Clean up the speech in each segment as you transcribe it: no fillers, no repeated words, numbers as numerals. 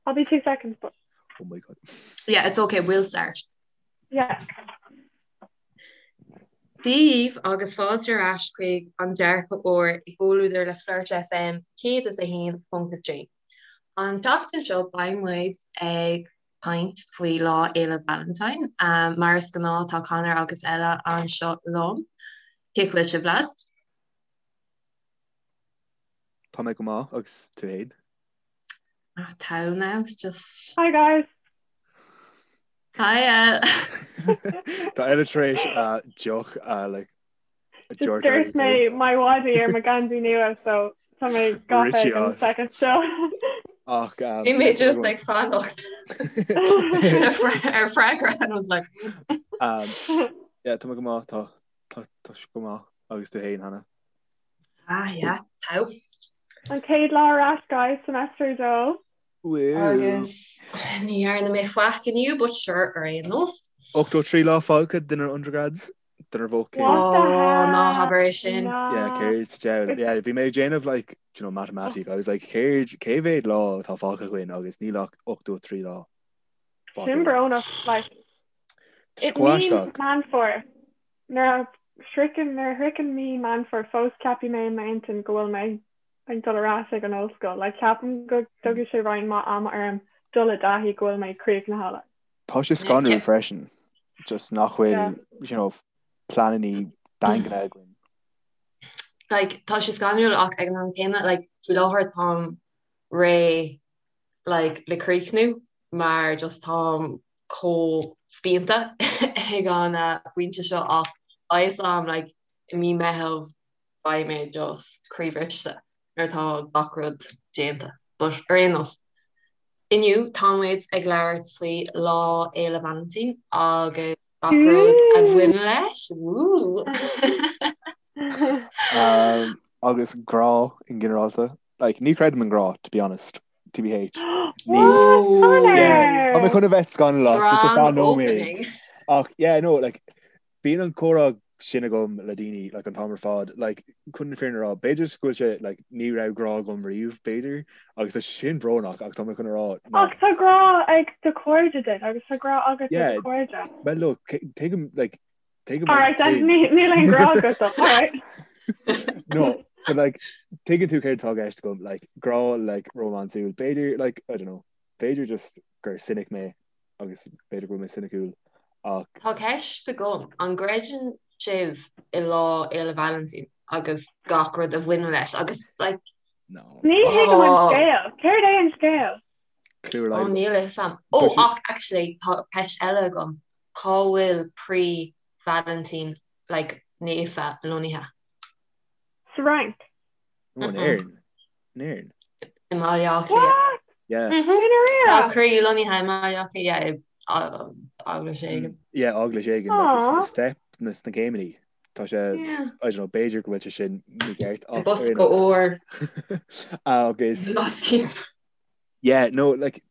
I'll be 2 seconds but. Oh my god. Yeah, it's okay, we'll start. Yeah. Dia dhaoibh agus fáilte ar ais chuig an dearcadh úr i gcomhluadar le Flirt FM 101.3. An tseachtain seo beidh muid ag caint faoi Lá Fhéile Valentine. Mar is gnáth tá Conor agus Ella anseo liom. Cén chaoi a bhfuil sibh lads? Tá mé go maith agus tú fhéin? Ah, tá now, just. Hi guys. Hi El. Tá Ella tar éis uh, deoch uh, like, a Just dúirt dúirt mé my wadi ar mo geansaí nua so tá mé gafa Richie ag an as. second seo. Ach um, Bhí mé just ag fanacht ar freagra and I was like um, yeah, tá mé go maith tá tá tá sé go maith agus tú fhéin Hannah. Ah yeah, tá. An chéad lá ar ais guys, semester 2. Woo. Agus ní dhearna mé faic inniu, but sure ar aon nós. 83 lá fágtha dár undergrads, dár bhfócéim. What the Oh, hell? ná habair é sin. Ná. Yeah, céard sa diabhal. Yeah, bhí mé ag déanamh like, do you know, matamaitic. I was like, céard, cé mhéad lá atá fágtha againn agus níl ach 83 lá fágtha Sin againn. brónach, like, Tá sé it chomh means aisteach. Meán Fómhair. Nuair a shroicheann, nuair a shroicheann mí Meán Fómhair fós ceapfaidh mé i m'intinn go bhfuil mé ag dul ar ais ag an ollscoil. Like ceapaim go dtógfaidh sé roinnt mhaith ama orm dul i dtaithí go bhfuil mé críochnaithe like. Tá sé scanrúil freisin, just nach bhfuil, Yeah. you know, pleananna daingne againn. Like tá sé scanrúil ach ag an am céanna like faoi láthair táim réidh like le críochnú mar just táim chomh spíonta ag an bpointe seo ach tá fhios a'm like i mí Meitheamh beidh mé just croíbhriste nuair atá gach rud déanta. But ar aon nós, inniu tá muid ag labhairt faoi Lá Fhéile Vailintín agus gach rud a bhaineann leis. Woo! Um, agus grá in ginearálta. Like, ní creidim in grá, to be honest. TBH. Ní What? Yeah, tá mé Conor! chun a bheith scannalach just ar Grand feadh nóiméad. opening. Ach yeah, no, like, bíonn an comhrá sin agam le daoine like, an t-am ar fad. Like, chun na fírinne a rá, b'fhéidir go bhfuil sé like, ní raibh grá agam riamh, b'fhéidir, agus tá sin brónach ach tá mé chun a rá Ach nach tá grá ag do chairde duit agus tá grá agat do do Yeah, chairde. well look, tuigim like, tuigim All an right, then thing. ní níl aon grá agat dom. All right. No, but like tuigeann tú céard atá i gceist agam, like grá like rómánsúil, b'fhéidir like I don't know, b'fhéidir just gur cynic mé agus b'fhéidir go bhfuil mé soiniciúil ach Tá ceist agam, an gcreideann sibh i Lá Fhéile Vailintín agus gach rud a bhaineann leis agus like no. Ní thuigim an oh scéal. Céard é an scéal? Clue ar oh aghaidh. níl a fhios a'm. Tá Oh sé ach actually tá ceist eile agam, cá bhfuil croí Vailintín like naofa lonnaithe? Sa Fhrainc. No, in Éirinn. In Éirinn. I mBaile Átha Cliath. What? Yeah. Mhm. I ndáiríre? Tá croí lonnaithe i mBaile Átha Cliath, yeah, i eaglais éigin. Yeah, eaglais éigin, like, it's Aww. na step, na sna céimeanna. Tá sé, Yeah. I don't know, b'fhéidir go bhfuil sé sin mícheart I ach ar bosca aon nós. óir. Agus Blascaod. Yeah, no, like,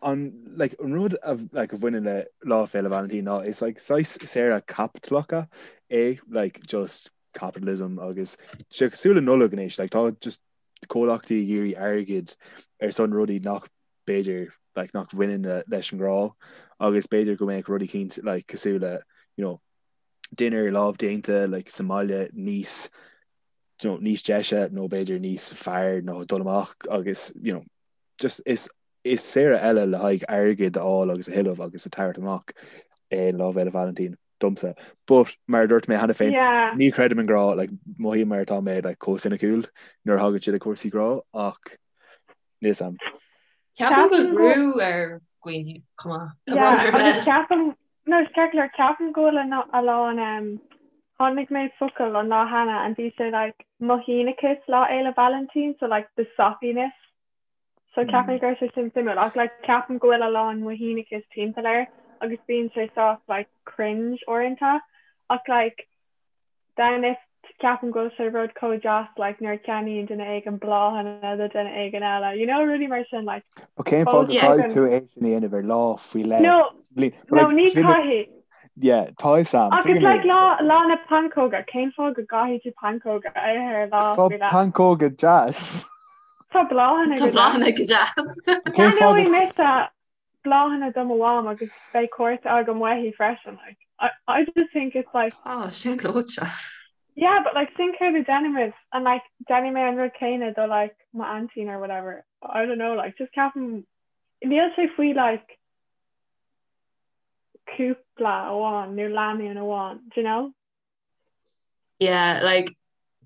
an, like, an rud a, like, a bhaineann le Lá Féile Vailintín ná is, like, saghas saoire caipitleach é, like, just capitalism agus sé cosúil le Nollaig anois, like, tá just comhlachtaí ag iarraidh airgead ar son rudaí nach b'fhéidir, like, nach bhaineann le, leis an ngrá agus b'fhéidir go mbeadh rudaí eicínt, like, cosúil le, you know, dinnéar lámhdéanta, like, sa mbaile níos, you know, níos deise nó b'fhéidir níos fearr ná dul amach agus, you know, just is is saoire eile le haghaidh airgead a fháil agus a thuilleamh agus a thabhairt amach é Lá Fhéile Vailintín domsa. But mar a dúirt mé cheana féin, Yeah. ní chreidim in grá, like, mothaím mar atá mé like, chomh soiniciúil nuair a thagann sé le cúrsaí grá ach níl 'fhios a'm. Ceapaim go Ceapaim bhfuil go brú ar dhaoine chomh maith. Tá Yeah, brón orm. agus ceapaim, no, is ceart go leor, ceapaim go bhfuil a lán, um, chonaic mé focal an lá cheana and bhí sé like mothínachas Lá Fhéile Vailintín, so like the soppiness. So ceapaim go raibh sé sin suimiúil ach like ceapaim go bhfuil a lán mothínachas timpeall air agus bíonn sé sách like cringe uaireanta ach like then if ceapaim go bhfuil sé rud chomh deas like nuair a cheannaíonn duine éigin bláthanna do duine éigin eile, you know rudaí mar sin like But cén fáth fós go gcaithfidh tuigim tú é sin a dhéanamh ar lá faoi leith No, sa bhliain? But no like ní sin caithfidh. yeah, tá 'fhios a'm, Ach it's tuigim like é. lá lá na pancóga, cén fáth go gcaithfidh tú pancóga a ithe ar lá Tá faoi leith? pancóga deas. Tá bláthanna Tá bláthanna go deas. Ceannóidh mise bláthanna do mo mham agus beidh cárta agam uaithi freisin like I, I just think it's like Oh, sin gleoite. Yeah, but like sin céard a déanaimid and like déanfaidh mé an rud céanna do like m'aintín or whatever. I don't know like just ceapaim níl sé faoi like cúpla amháin nó lánúin amháin, do you know? Yeah, like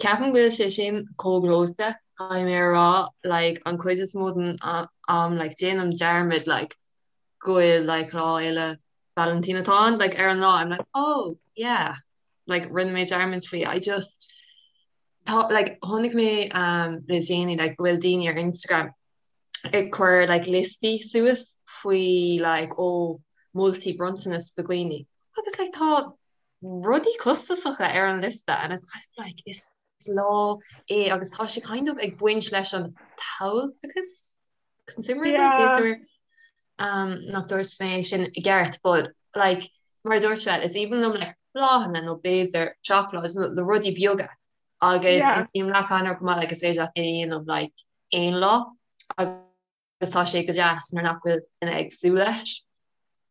ceapaim go bhfuil sé sin chomh gleoite, caithfidh mé a rá, like an chuid is mó den am like déanaim dearmad like go bhfuil like Lá Fhéile Vailintín atá ann, like ar an lá I'm like oh yeah, like rinne mé dearmad faoi, I just tá like chonaic mé um le déanaí like go bhfuil daoine ar Instagram ag cur like liostaí suas faoi like ó moltaí bronntanas do dhaoine agus like tá rudaí costasacha ar an liosta and it's kind of like is lá é agus tá sé kind of ag baint leis an tomhaltachas consumerism Yeah. b'fhéidir um, nach dúirt mé é sin i gceart but like mar a dúirt sé is aoibhinn liom like bláthanna nó b'fhéidir seacláid nó na rudaí beaga agus Yeah. aontaím le Conor go maith like is féidir leat é a dhéanamh like aon lá agus agus tá sé go deas nuair nach bhfuil duine ag súil leis.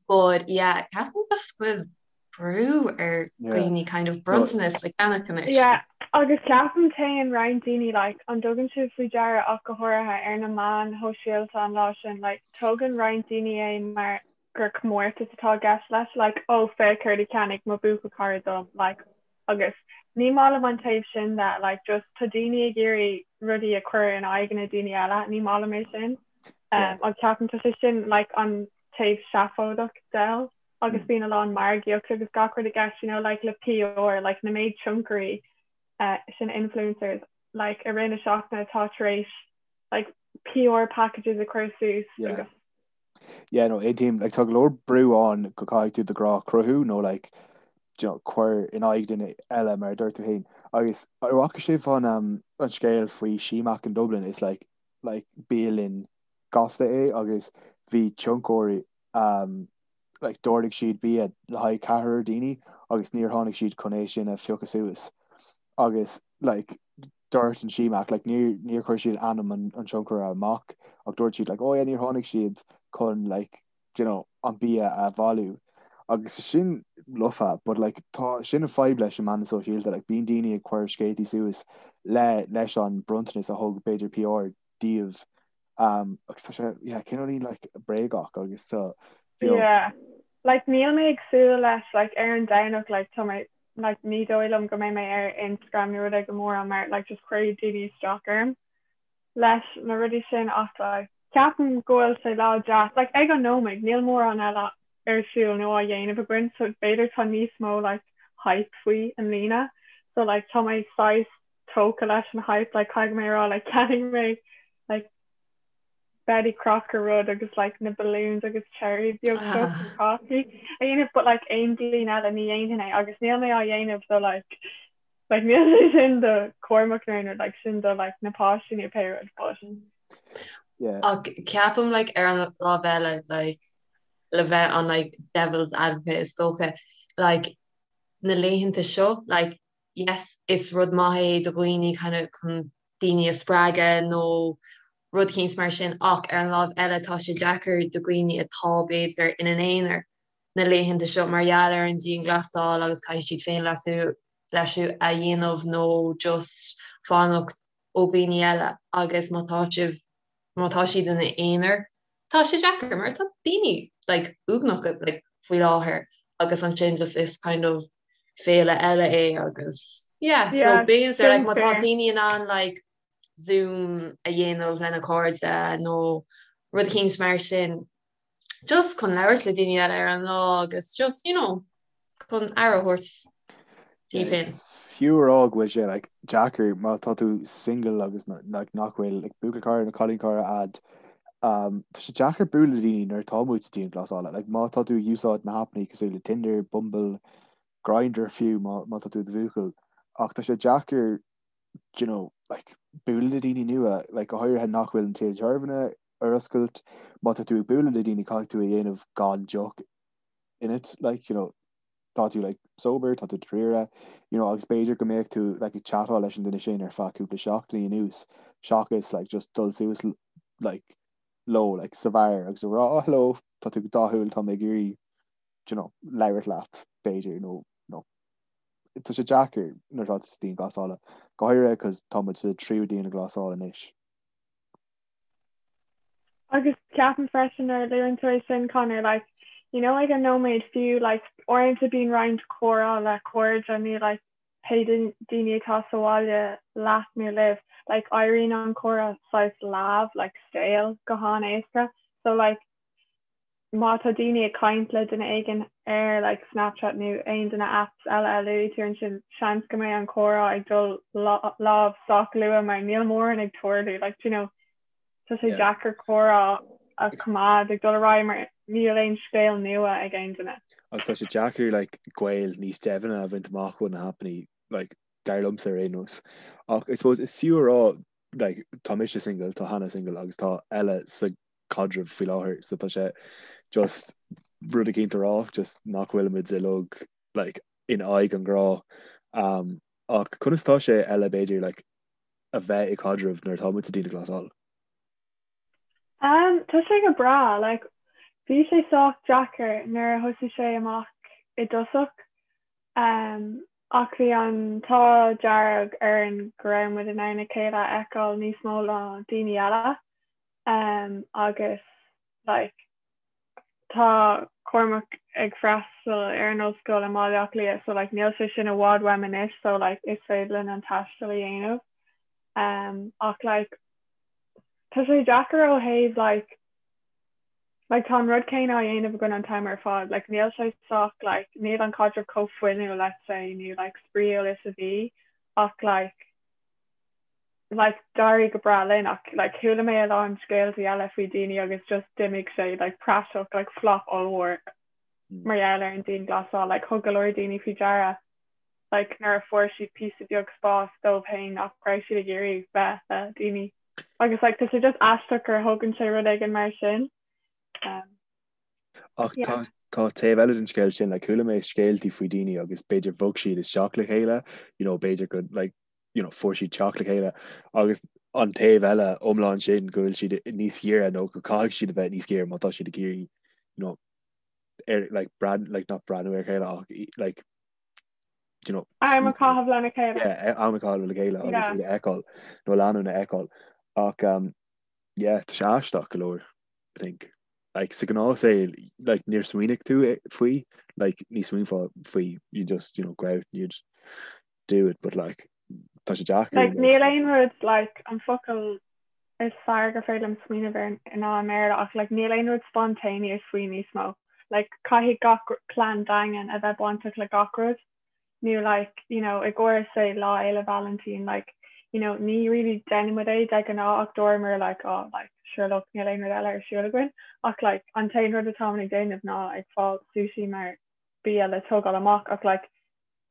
But yeah, ceapaim just go bhfuil brú ar dhaoine kind of bronntanas a cheannach anois. Yeah, agus ceapaim téann roinnt daoine like an dtugann sibh faoi deara ach go háirithe ar na meáin shóisialta an lá sin like tógann roinnt daoine é mar gur comórtas atá i gceist leis like oh féach céard a cheannaigh mo bhuachaill cara dom like agus ní maith liom an taobh sin de like just tá daoine ag iarraidh rudaí a chur in aghaidh na daoine eile ní maith liom é sin um, agus ceapaim tá sé sin like an taobh seafóideach de agus mm. bíonn a lán margaíocht agus gach rud i gceist you know like le PR like na méid tionchairí uh, sin influencers like i rith na seachtaine atá tar éis like PR packages a chur suas yeah. agus Yeah, no, aontaím, like, tá go leor brú ann go caithfidh tú do ghrá a chruthú nó like, you know, cuir in aghaidh duine eile mar a dúirt tú féin. Agus an bhfaca sibh an, um, an scéal faoi Simac in Dublin is like, like bialann gasta é agus bhí tionchairí um, like, d'ordaigh siad bia le haghaidh ceathrar daoine agus níor tháinig siad chun é sin a phiocadh suas. Agus like, dúirt an Simac like níor níor chuir siad ainm an an tionchaire amach ach dúirt siad like oh yeah níor tháinig siad chun like you know an bia a bhailiú agus sin lofa but like tá sin an fadhb leis na meáin sóisialta like bíonn daoine ag cur scéaltaí suas le leis an bronntanas a thug b'fhéidir PR díobh um agus tá sé yeah cineáilín like bréagach agus tá you know Yeah. Like níl mé ag súil leis like ar an Domhnach like tá mé like ní dóigh liom go mbeidh mé ar Instagram nó rud éigin mórán mar like just cuirfidh daoine isteach orm leis na rudaí sin ach like ceapaim go bhfuil sé lá deas like ag an nóiméad níl mórán eile ar siúl nó á dhéanamh againn so b'fhéidir tá níos mó like hype faoi i mbliana so like tá mé saghas tógtha leis an hype like caithfidh mé a rá like cheannaigh mé like Betty Crocker rud agus like na balloons agus cherry beag seo chun cácaí a dhéanamh but like aon bhliain eile ní dhéanfainn é agus níl mé á dhéanamh do like like níl sé sin do Cormac nó aon rud like sin do like na páistí nó pé rud but Yeah. Ach ceapaim like ar an lámh eile like le bheith an like devil's advocate is dócha like na laethanta seo like yes is rud maith é do dhaoine kind of chun daoine a spreagadh nó rud éicint mar sin ach ar an lámh eile tá sé deacair do dhaoine atá b'fhéidir ina n-aonar na laethanta seo mar gheall ar an dianghlasáil agus caithfidh siad féinleasú leasú a dhéanamh nó just fanacht ó dhaoine eile agus má tá sibh má tá siad ina n-aonar tá sé deacair mar tá daoine like uaigneach like faoi láthair agus ansin just is kind of féile eile é agus yeah so Yeah, b'fhéidir like sin má tá fair. daoine in ann like Zoom a dhéanamh lena cairde nó rud éicint mar sin just chun labhairt le daoine eile ar an lá agus just you know chun aire a thabhairt daoibh féin. Fiú a rá go bhfuil sé like deacair má tá tú single agus like nach bhfuil like buachaill cara nó cailín cara a'd um, tá sé deacair bualadh le daoine nuair atá muid sa dianghlasáil like má tá tú ag úsáid na haipeanna cosúil le Tinder, Bumble, Grindr fiú má má tá tú i do bhuachaill ach tá sé deacair you know, like, bualadh le daoine nua, like, go háirithe nach bhfuil an tithe tábhairne ar oscailt, má tá tú ag bualadh le daoine caithfidh tú a dhéanamh gan deoch ionat, like, you know. tá tú like sober, tá tú dáiríre, you know, agus b'fhéidir go mbeadh tú like ag chatáil leis an duine sin ar feadh cúpla seachtainí anuas seachas like just dul suas like leo like sa bheár agus a rá oh hello tá tú go dathúil tá mé ag iarraidh you know, labhairt leat b'fhéidir nó nó tá sé deacair nuair atá tú sa dianghlasáil go háirithe cos tá muid sa tríú dianghlasáil anois. Agus ceapaim freisin nuair a luann tú é sin Conor, like, you know ag an nóiméad fiú like uaireanta bíonn roinnt comhrá le cairde nó like pé daoine atá sa bhaile leat nó libh, like éiríonn an comhrá saghas leamh, like stale go han-éasca. So like má tá daoine ag caint le duine éigin ar like Snapchat nó aon de na apps eile a luaigh tú ansin, seans go mbeidh an comhrá ag dul leamh sách luath mar níl mórán ag tarlú like do you know tá sé deacair comhrá a choimeád ag dul ar aghaidh mar níl aon scéal nua ag aon duine. Agus tá sé deacair like gaol níos doimhne a bhaint amach ó na haipeanna like dar liomsa ar aon nós. Ach I suppose is fiú a rá like tá mise single, tá Hannah single agus tá Ella sa caidreamh faoi láthair so tá sé just rud eicínt a rá just nach bhfuil muid uilig like in aghaidh an ghrá um, ach conas tá sé Ella b'fhéidir like a bheith i caidreamh nuair atá muid sa dianghlasáil? Um, tá sé go breá like bhí sé sách deacair nuair a thosaigh sé amach i dtosach um, ach bhí an t-ádh dearg orainn go raibh muid in ann a chéile a fheiceáil níos mó ná daoine eile. um agus like tá Cormac ag freastal ar an ollscoil i mBaile Átha Cliath so like níl sé sin i bhfad uaim anois so like is féidir linn an taisteal a dhéanamh um ach like tá sé deacair ó thaobh like like tá an rud céanna á dhéanamh againn an t-am ar fad like níl sé sách like níl an caidreamh chomh fuinniúil let's say nó like spraíúil is a bhí ach like like d'éirigh go breá linn ach like chuala mé a lán scéaltaí eile faoi daoine agus just d'imigh sé like praiseach like flop ollmhór mm. mar gheall ar an dianghlasáil like thug go leor daoine faoi deara like nuair a fuair siad píosa beag spás dóibh féin nach raibh siad ag iarraidh bheith le daoine agus like tá sé just aisteach gur thógann sé rud éigin mar sin um, Ach yeah. tá tá taobh eile den scéal sin, like, chuala mé scéaltaí faoi daoine agus b'fhéidir bhog siad isteach le chéile, you know, b'fhéidir go like, you know, fuair siad teach le chéile agus an taobh eile iomlán sin go bhfuil siad níos giorra nó go caithfidh siad a bheith níos giorra má tá siad ag iarraidh you know, ar like, breathnú like, not breathnú ar chéile ach like, you know, am a chaitheamh lena chéile. Yeah, am a chaitheamh le chéile agus iad a fheiceáil nó leanúint a fheiceáil ach um, yeah, tá sé aisteach go leor I think. Like, sa ghnáthshaol like, níor smaoinigh tú faoi like, ní smaoinfeá faoi you just you know, go out and you'd do it but like tá sé deacair. Like níl aon rud like an focal is fearr gur féidir liom smaoineamh air ná i mBéarla ach like níl aon rud spontaneous faoi níos mó. Like caithfidh gach plean daingean a bheith bainteach le gach rud nó like you know i gcomhair say Lá Fhéile Vailintín like you know ní really déanann muid é de ghnáth ach dúramar like oh like sure look níl aon rud eile ar siúl againn ach like an t-aon rud atáimid ag déanamh ná ag fáil sushi mar bia le tógáil amach ach like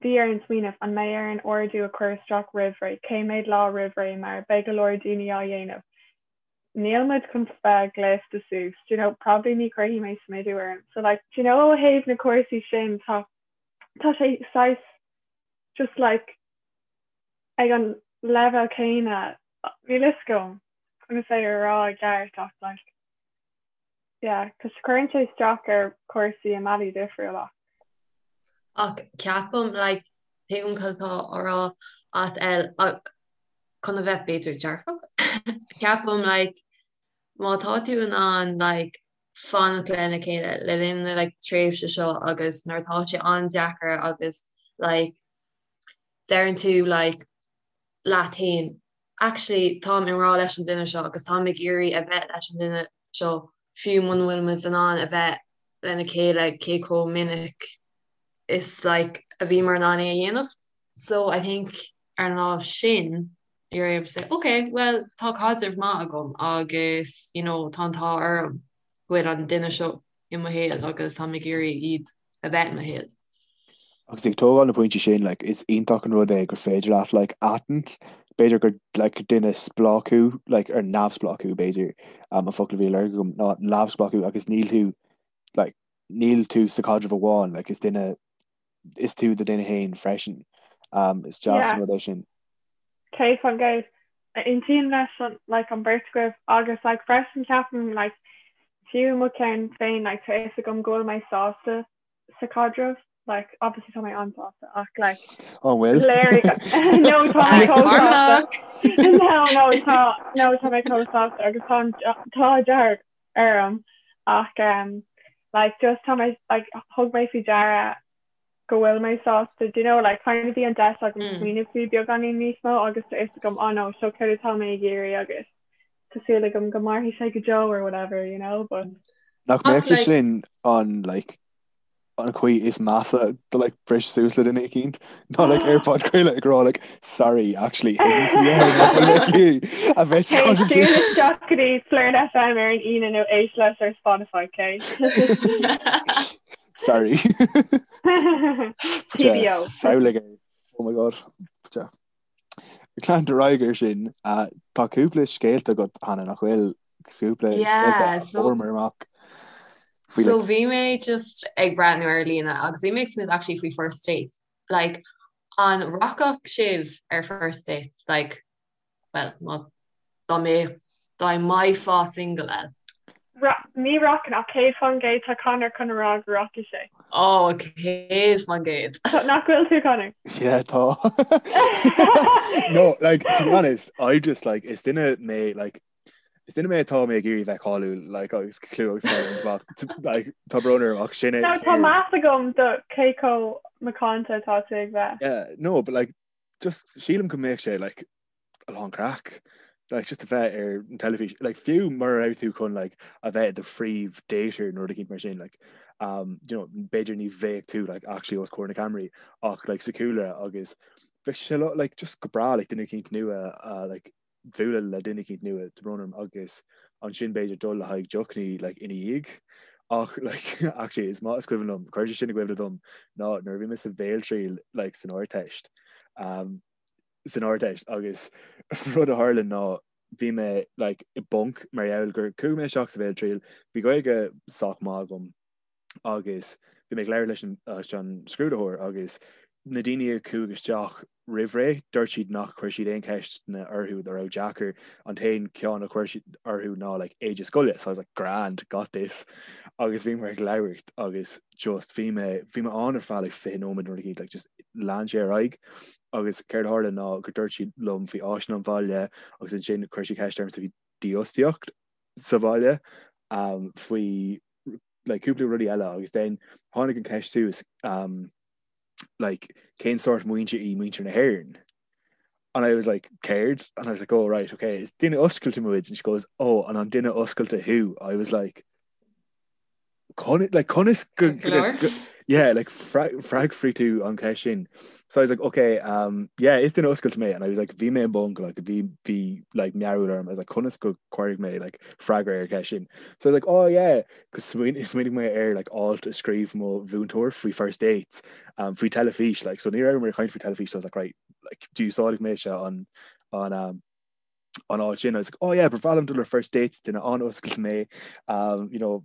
Bhí orainn smaoineamh, an mbeidh orainn ordú a chur isteach roimh ré, cé mhéad lá roimh ré mar beidh go leor daoine á dhéanamh. Níl muid chun bheith gléasta suas, do you know, probably ní chuirfidh mé smideadh orm. So like, do you know ó thaobh na cúrsaí sin tá tá sé saghas just like ag an leibhéal céanna, níl fhios agam conas é a rá i gceart ach like Yeah, cos cuireann sé isteach ar chúrsaí i mbealaí difriúla. Ach ceapaim, like, tuigim cad atá á rá agat El, ach chun a bheith b'fhéidir dearfach, ceapaim, like, má tá tú in ann, like, fanacht lena chéile le linn na, like, tréimhse seo agus nuair atá sé an-deacair agus, like, deireann tú, like, leat féin, actually táim i ngrá leis an duine seo agus táim ag iarraidh a bheith leis an duine seo fiú muna bhfuil muid in ann a bheith lena chéile cé chomh minic is like a bhíomar in ann é a dhéanamh. So I think ar an lámh sin you're able to say ok well tá caidreamh maith agam agus you know tá an t-ádh orm go bhfuil an duine seo i mo shaol agus táim ag iarraidh iad a bheith i mo shaol. Agus ag tógáil na pointí sin, like, is iontach an rud é gur féidir leat, like, aithint, b'fhéidir gur, like, duine spleách thú, like, ar neamhspleách thú, b'fhéidir, um, an focal a bhí á lorg agam, ná neamhspleách thú agus níl tú, like, níl tú sa chaidreamh amháin, like, is duine. is tú do duine féin freisin. Um, is deas an rud é sin. 100%. Aontaím leis an like an beirt agaibh agus like freisin ceapaim like fiú mo cheann féin like tá fhios agam go bhfuil mé sásta sa chaidreamh like obviously tá mé an-sásta ach like An bhfuil? léirigh no tá mé chomh sásta no no tá no tá mé chomh sásta agus tá an t-ádh dearg orm ach um like just tá mé like thug mé faoi deara go bhfuil mé sásta do you know like kind of bhí an deis agam mm. smaoineamh faoi beagáinín níos mó agus tá fhios agam oh no seo céard atá mé ag iarraidh agus tá súil agam go mairfidh sé go deo or whatever you know but Nach mbeadh sé sin an like an chaoi is measa do like briseadh suas le duine eicínt ná like ar podchraoladh ag rá like sorry actually a bheith isteach go dtí Flern FM ar an Aoine nó éist leis ar Spotify okay? Sorry. TBO. Samhlaigh é. Oh my god. Ag leanúint ar aghaidh ar sin, tá cúpla scéalta agat Hannah nach bhfuil cúpla scéalta a fuaireamar amach. So bhí mé just ag breathnú ar líne agus bhí mé ag smaoineamh actually faoi first dates. Like an rachadh sibh ar first dates? Like well, má dá mbeadh dá mbeifeá single eh? Ní rachainn ach 100% tá Conor chun a rá go rachaidh sé. Ó, 100%. Nach bhfuil tú Conor? Yeah, tá. No, like, to be honest, I just like, is duine mé, like, is duine mé atá mé ag iarraidh bheith cáiliúil, like, agus clú agus cáil, like, tá brón orm ach sin é. No, tá meas agam do cé chomh macánta atá tú ag bheith. Yeah, no, but like, just sílim go mbeadh sé, like, a lán craic like just a bheith ar an teilifís like fiú mura raibh tú chun like a bheith i do phríomh dater nó rud eicínt mar sin like um you know b'fhéidir ní bheadh tú like actually os comhair na ceamaraí ach like sa chúlra agus bheadh sé like just go breá like duine eicínt nua uh, like bualadh le duine eicínt nua tá brón orm agus ansin b'fhéidir dul le haghaidh deochnaí like ina dhiaidh ach like actually is maith is cuimhin liom chuir sé sin i gcuimhne dom ná nuair a bhí mé sa bhéaltriail like san Ardteist um san Ardteist agus rud a tharla ná bhí mé like i bponc mar gheall gur chuaigh mé isteach sa bhéaltriail, bhí Gaeilge sách maith agam agus bhí mé ag labhairt leis an leis an scrúdaitheoir agus na daoine a chuaigh isteach roimh ré dúirt siad nach chuir siad aon cheisteanna orthu a raibh deacair, an t-aon cheann a chuir siad orthu ná like éide scoile so I was like grand, got this agus bhí mé ag labhairt agus just bhí mé bhí mé ann ar feadh like 20 nóiméad nó rud eicínt like just lean sé ar aghaidh agus céard a tharla ná gur dúirt sí liom faoi áiseanna an bhaile agus ansin chuir sí ceist orm faoi dífhostaíocht sa bhaile um, faoi like, cúpla rudaí eile agus then tháinig an ceist suas um, like, cén sórt muintir í muintir na hÉireann? And I was like, céard? And I was like, oh right, okay, is duine oscailte muid and she goes, oh, and an duine oscailte thú? I was like, like conas go yeah like freagraíonn tú an cheist sin so I was like okay um yeah is duine oscailte mé and I was like bhí mé i bponc like bhí bhí like mearbhall orm I was like conas go gcuirfidh mé like freagra ar cheist sin so I was like oh yeah cos smaoinigh mé ar like alt a scríobh mo mhúinteoir faoi first dates um faoi teilifís like so ní raibh mé ag caint faoi teilifís so I was like right like d'úsáid mé se an an um an alt sin I was like oh yeah ba bhreá liom dul ar first dates duine an-oscailte mé um, you know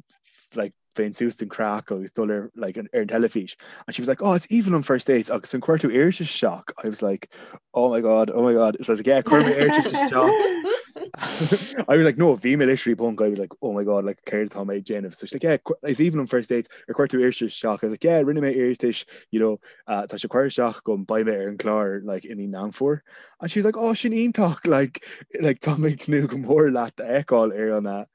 like bheinn suas don craic agus dul ar like an, ar an teilifís and she was like oh it's aoibhinn liom first dates agus an chuir tú iarratas isteach I was like oh my god oh my god so I was like yeah chuir mé iarratas isteach I was like no bhí mé literally i bponc I was like oh my god like céard atá mé ag déanamh so she's like yeah is aoibhinn liom first dates ar chuir tú iarratas isteach I was like yeah rinne mé iarratas you know uh, tá sé curtha isteach agam beidh mé ar an chlár like i mí Meán Fómhair And she was like, oh, sin iontach, like, like, tá mé ag tnúth go mór leat a fheiceáil ar an, uh,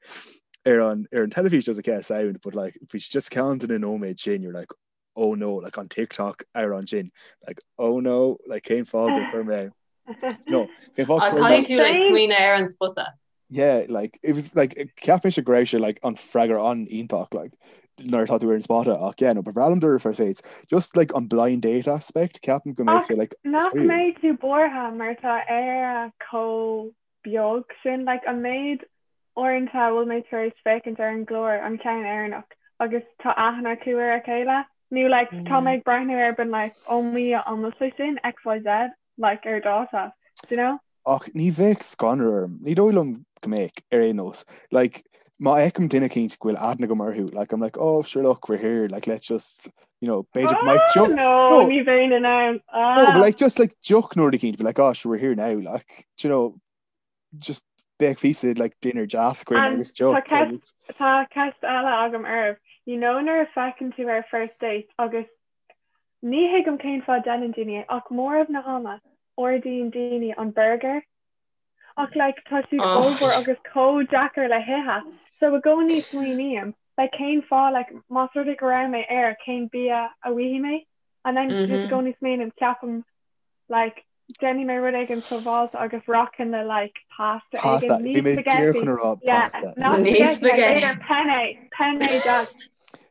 ar an, ar an teilifís. I was like, yeah, sound, but like, bhí sé just ceann de na nóiméid sin, you're like, oh no, like an TikTok ar an sin, like, oh no, like, cén fáth gur chuir mé, no, cén fáth gur chuir mé. Caithfidh tú like smaoineamh ar an spota. Yeah, like, it was, like, cheap mise go raibh sé, like, an freagra an-iontach, like, nuair atá tú ar an spota, ach yeah, no, ba bhreá liom dul ar first dates. Just, like, an blind date aspect, ceapaim go mbeadh sé, like, Nach mbeidh tú buartha mar tá Éire chomh beag sin, like, an méid uaireanta a bhfuil mé tar éis féachaint ar an gclár, an ceann Éireannach, agus tá aithne acu ar a chéile, nó, like, tá mé ag breathnú air been like, oh mo Dhia, an bhfuil sé sin XYZ, like, ar dáta, do you know? Ach ní bheadh scanradh orm. Ní dóigh liom go mbeadh, ar aon nós. Like, má fheicim duine eicínt go bhfuil aithne agam orthu, like I'm like, oh sure look, we're here, like let's just, you know, b'fhéidir go mbeidh deoch, no, no, ní bheinn in ann. Ah. No, but like just like deoch nó rud eicínt, be like, oh sure we're here now, like, do you know, just beidh píosa like dinner deas againn agus deoch. Tá ceist eile agam oraibh. You know nuair a feiceann tú ar first date agus ní thuigim cén fáth déanann daoine é ach móramh na hama ordaíonn daoine an burger Ach like tá siad ollmhór agus chomh deacair le hithe. So i gcónaí smaoiním, like cén fáth like más rud é go raibh mé air cén bia a bhfaighidh mé? And then just i gcónaí smaoiním ceapaim like déanfaidh mé rud éigin sábháilte agus rachainn le like pasta éigin. Ní bhí mé díreach chun a rá pasta. Yeah, not spaghetti, like b'fhéidir penne, penne deas.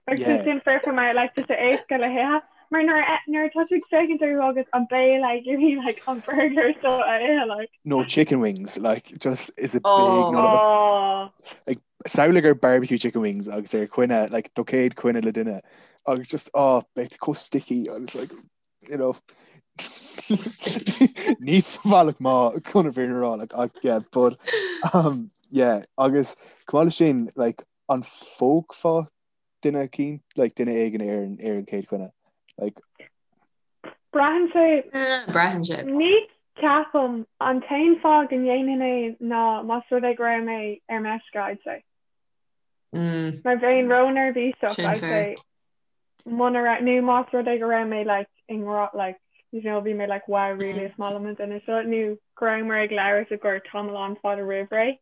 Agus sin foirfe mar like tá sé éasca le hithe. Mar nuair a nuair atá tú ag féachaint orthu agus an béal ag iarraidh like an burger seo a ithe like. No chicken wings like just is a big oh. no oh. Like samhlaigh ar barbecue chicken wings agus ar coinne like do chéad choinne le duine agus just oh beidh chomh sticky agus like you know ní sa bhealach maith chun a bheith rá like ach yeah but um yeah agus chomh maith leis sin like an phógfá duine eicínt, like duine éigin ar an ar an chéad choinne, like. Braitheann sé. Braitheann sé. Ní ceapaim, an t-aon fáth go ndéanfainn é ná más rud é go raibh mé ar meisce, I'd say. Mar bheinn ró-neirbhíseach, I'd say. Muna raibh, nó más rud é go raibh mé like i ngrá, like, you know, bhí mé like wow, really is maith liom an duine seo, nó go rabhamar ag labhairt i gcomhair tamall an-fhada roimh ré.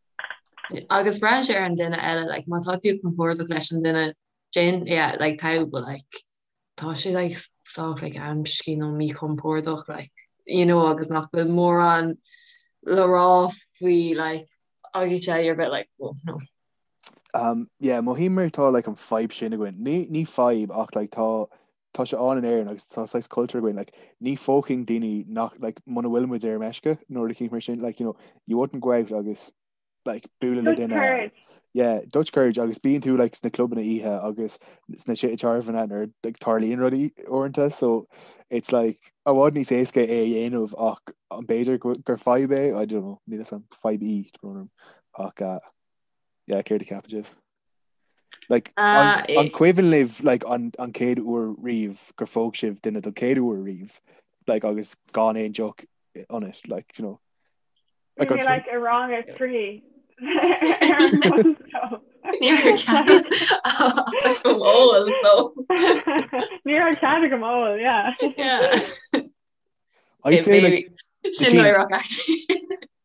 Agus braitheann sé ar an duine eile, like, má tá tú compordach leis an duine sin, yeah, like, tá, but like, tá sé like sách like amscaí nó míchompordach, like, you know, agus nach bhfuil mórán le rá faoi, like, agus yeah, you're a bit like, well, no. Um, yeah, mothaím mar tá like an fadhb sin againn. Ní, ní fadhb ach like tá tá sé ann in Éirinn agus tá saghas cultúr againn like ní phógfainn daoine nach like muna bhfuil muid ar meisce nó rud eicínt mar sin like you know you wouldn't go out agus like bualadh le duine courage. yeah Dutch courage agus bíonn tú like sna clubanna oíche agus sna tithe tábhairne nuair like tarlaíonn rudaí uaireanta so it's like i bhfad níos éasca é a dhéanamh ach an b'fhéidir gur fadhb é I don't know níl a fhios agam fadhb í ach uh, yeah céard a cheapann sibh? Like, an, uh, an cuimhin libh like, an, an chéad uair riamh gur phóg sibh duine don chéad uair riamh like, agus gan aon deoch ionat like, you know. Like, Bhí like, i rang a trí. Ní raibh ól so. Ní raibh cead agam ól, yeah. Yeah. I'd say like Sin náireach actually.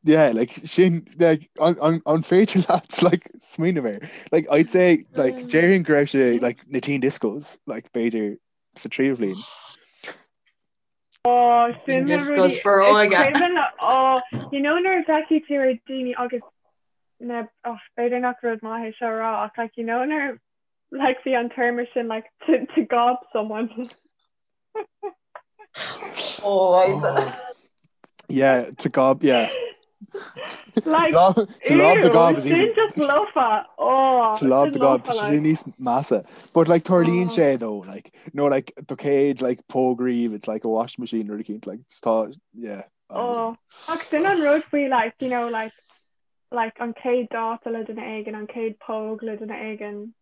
Yeah, like sin like an, an, an féidir leat like smaoineamh air. Like I'd say like mm. déarfainn go raibh sé like na teen discos like b'fhéidir sa tríú bhliain. Oh, sin na discos foróige. Oh, you know nuair a bhfeicfidh tú ar daoine agus na oh, b'fhéidir nach rud maith é seo a rá ach like you know nuair like bhí an téarma sin like to, to gob someone. Oh, oh. Yeah, to gob, yeah. Like, to lob the gob is even just lofa. Oh, to lob the gob tá sé níos measa. But like tarlaíonn oh. sé though, like no like do chéad like póg riamh, it's like a washing machine or cínt like tá yeah. Oh, ach sin an rud faoi like you know like like an chéad dáta le duine éigin, an chéad póg le duine éigin.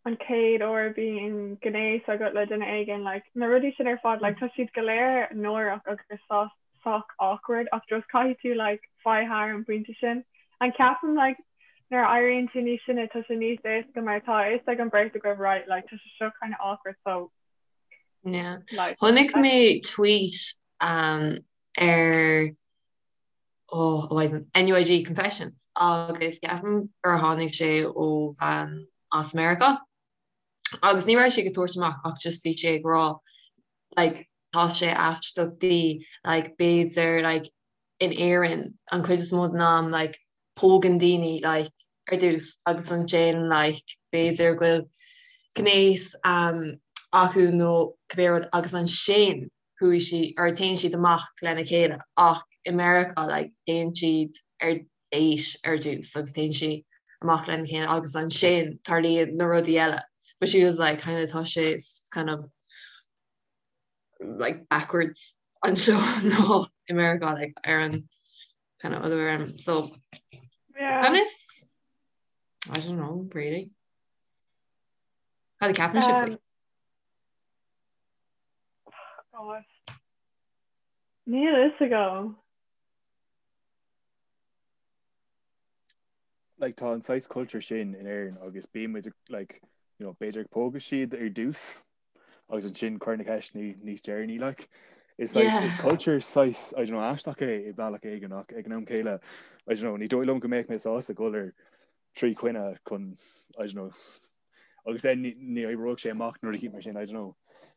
an chéad uair a bhíonn gnéas agat le duine éigin, like, na rudaí sin ar fad, like, tá siad go léir náireach agus sách awkward ach just caithfidh tú, like, fáil thar an bpointe sin. And ceapaim, like, nuair a éiríonn tú níos sine tá sé níos éasca mar tá a fhios ag an bheirt agaibh, right, like, tá sé seo kind of awkward so, Yeah. like, Chonaic mé tweet um, ar oh, oh, NUIG Confessions agus ceapaim gur tháinig sé ó bhean as Meiriceá agus ní raibh sé ag tabhairt amach ach just bhí sé ag rá like tá sé aisteach di like b'fhéidir like in Éirinn an chuid is mó den am like pógann daoine like ar dtús agus ansin like b'fhéidir go bhfuil gnéas um, acu nó cibé rud agus ansin chuaigh siad or téann siad amach lena chéile ach i Meiriceá like téann siad ar date ar dtús agus téann siad amach lena chéile agus ansin tarlaíonn na rudaí eile but she was like kind of tá sé kind of like backwards anseo ná i Meiriceá like ar an kind of other way around so yeah. kind of. I don't know, really. Cad a ceapann sibh faoi? Oh, God. Níl a fhios agam. Like tá an saghas culture sin in Éirinn agus bíonn muid like you know b'fhéidir ag pógadh siad ar dtús agus ansin cuir na ceisteanna níos deireanaí like is saghas is culture saghas I don't know aisteach é i bealach éigin ach ag an am céile I don't know ní dóigh liom go mbeadh mé sásta dul ar trí choinne chun I don't know agus then ní oibreoidh sé amach nuair a cheap mar sin I don't know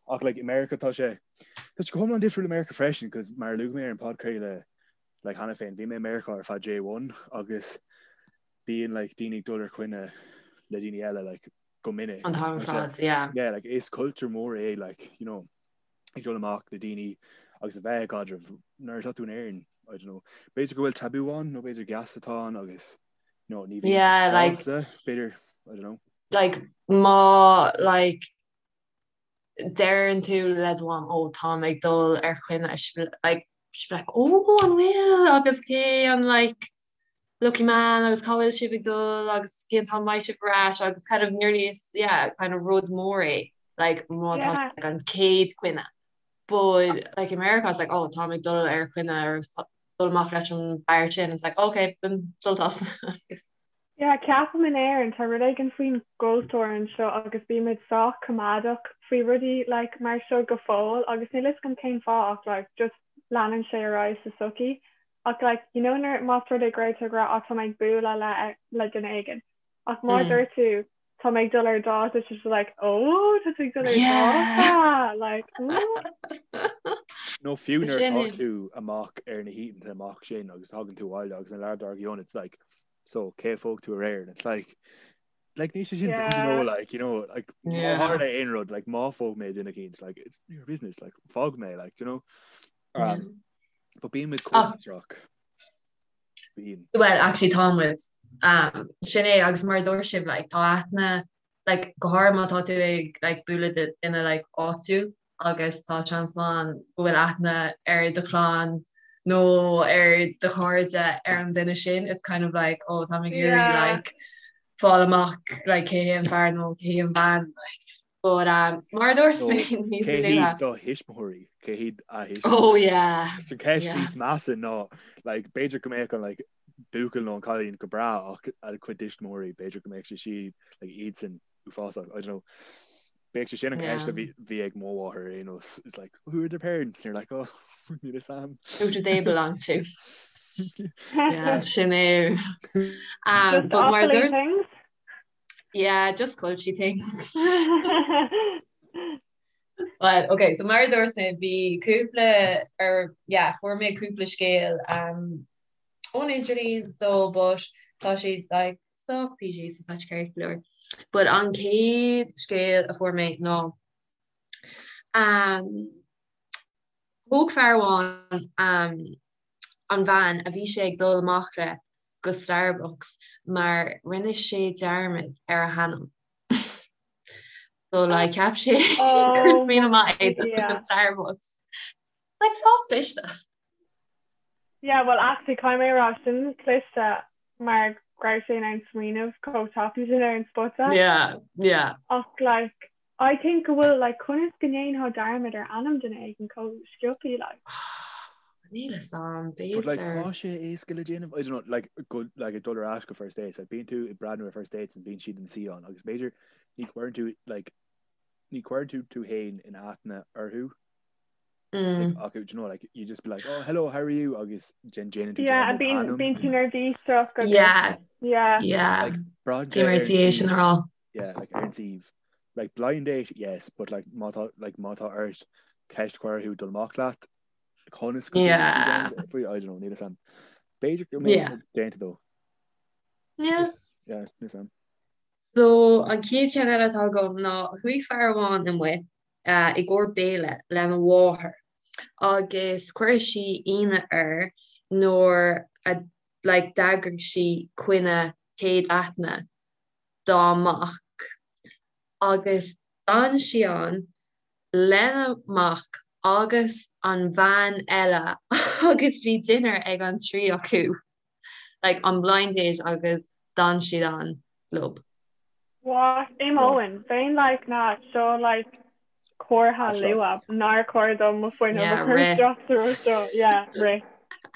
ach like i America tá sé tá sé go hiomlán difriúil i America freisin cos mar a luaigh mé ar an podchraoladh like cheana féin bhí mé i Meiriceá ar feadh J1 agus bíonn like daoine ag dul ar choinne le daoine eile like go minic. An t-am ar fad, yeah. Yeah, like is culture mór é like you know ag dul amach le daoine agus a bheith i gcaidreamh nuair atá tú in Éirinn, I don't know. B'fhéidir go bhfuil tabú ann nó b'fhéidir geasa atá ann agus you know, ní bhíonn Yeah, like sásta, b'fhéidir, I don't know. Like má like deireann tú le do mham ó táim ag dul ar choinne like she'll be like ó an bhfuil agus cé an like lucky man agus cá bhfuil sibh ag dul agus cén t-am a mbeidh sibh ar ais agus kind of nearly is yeah kind of rud mór é like má tá Yeah. like an chéad choinne but like in America it's like oh táim ag dul ar choinne or dul amach leis an bhfear sin it's like okay bain sult as agus Yeah, ceapaim in Éirinn, tá rud éigin faoin gcultúr anseo agus bímid sách coimeádach faoi rudaí like mar seo go fóill agus níl fhios agam cén fáth ach like just leanann sé ar aghaidh sa tsochaí. Ach like you know nuair más rud é go raibh tú ag rá ah tá mé ag bualadh le le duine éigin ach má dúirt tú tá mé ag dul ar dáta tá sé like oh tá tú ag dul ar dáta like ooh. Nó fiú nuair atá tú amach ar na hoícheanta amach sin agus tagann tú abhaile agus an lá dár gcionn it's like so cé a phóg tú aréir and it's like like ní sé sin you know like you know like má tharla aon rud like má phóg mé duine eicínt like it's your business like fág mé like you know um, but bíonn muid chomh fiosrach bíonn Well actually tá muid um, sin é agus mar a dúirt sibh like tá aithne like go háirithe má tá tú ag like bualadh le duine like áitiúil agus tá seans maith ann go bhfuil aithne ar do chlann nó ar do chairde ar an duine sin it's kind of like oh tá mé ag iarraidh like fáil amach like cé hé an fear nó cé hí an bhean like but um, mar a dúirt mé níos Cé hiad do thuismitheoirí cé hiad a thuismitheoirí Oh yeah Sin ceist níos measa ná like b'fhéidir go mbeadh an like buachaill nó an cailín go breá ach a cuid tuismitheoirí b'fhéidir go mbeadh sé sí like iadsan uafásach I don't know Bheadh sé sin an ceist a bhí ag mo mháthair ar aon nós it's like who are their parents and you're like oh níl fhios a'm. Who do they belong to? Yeah, sin é. Um, but mar dúirt things? Yeah, just culture things. But okay, so mar dúirt mé bhí cúpla ar yeah, fuair mé cúpla scéal um, ón idirlíon so but tá siad like sách PG so tá sé ceart go leor. But an chéad scéal a fuair mé ná um, thóg fear amháin um, an bhean a bhí sé ag dul amach le go Starbucks mar rinne sé dearmad ar a hainm. So like cheap sé gur Oh smaoineamh maith é dul yeah. go Starbucks. Like sách cliste. Yeah, well actually caithfidh mé a rá sin cliste mar go raibh sé in ann smaoineamh chomh tapaidh sin ar an spota. Yeah, yeah. Ach like I think go bhfuil like conas go ndéanfá dearmad ar ainm duine éigin chomh sciobtha like. Níl fhios a'm, But like b'fhéidir. tá sé éasca le déanamh, I don't know, like go like ag dul ar ais go first dates, like bíonn tú ag breathnú ar first dates and bíonn siad ina suí ann agus b'fhéidir ní chuireann tú like ní chuireann tú tú féin in aithne orthu Mm. Like, do you know, like, you just be like, oh, hello, how are you? Agus then déanann tú Yeah, dearmad bíonn ainm. bíonn tú neirbhíseach agus Yeah, yeah. yeah. Like, braitheann Bhí sé mé ar ar an tí é sin suíomh. a rá. Yeah, like ar an suíomh. Like blind date, yes, but like má tá like má tá ort ceist a chur orthu dul amach leat, conas go Yeah. faoi I don't know, níl fhios a'm. B'fhéidir go mbeidh Yeah. sé déanta dó. Yeah. Just, yeah, níl fhios a'm. So, an chéad cheann eile atá agam ná chuaigh fear amháin amuigh i gcomhair béile lena mháthair agus chuir sí ionadh air nuair a like d'eagraigh sí coinne céad aithne dá mac agus d'fhan sí ann lena mac agus an bhean eile agus bhí dinnéar ag an trí acu. Like an blind date agus d'fhan siad ann. Leo. What? Imeoinn. Bheinn like nah seo like comhartha luath nár chóir dom mo fuinneamh a chur isteach sa rud seo. Yeah, rith.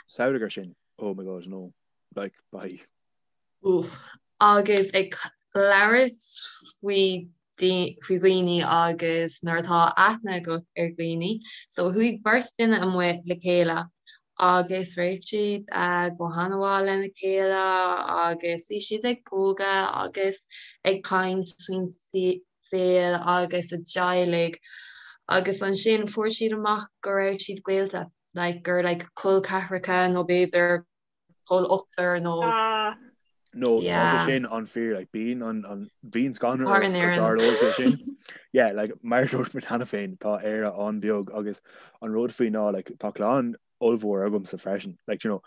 Samhlaigh air sin. Oh my god, no. Like, bye. Oof. Agus ag labhairt faoi faoi dhaoine agus nuair atá aithne agat ar dhaoine, so chuaigh beirt duine amuigh le chéile agus rith siad go han-mhaith lena chéile agus bhí siad ag pógadh agus ag caint faoin saol agus a dteaghlaigh agus ansin fuair siad amach go raibh siad gaolta, like gur like col ceathracha nó b'fhéidir col ochtar nó No, tá sé sin an-fhíor, like, bíonn an, an, bíonn scanradh orm go dtarlódh sé sin. Yeah, like, mar a dúirt muid cheana féin, tá Éire an-bheag agus an rud faoi ná, like, tá clann ollmhór agamsa freisin, like, you know,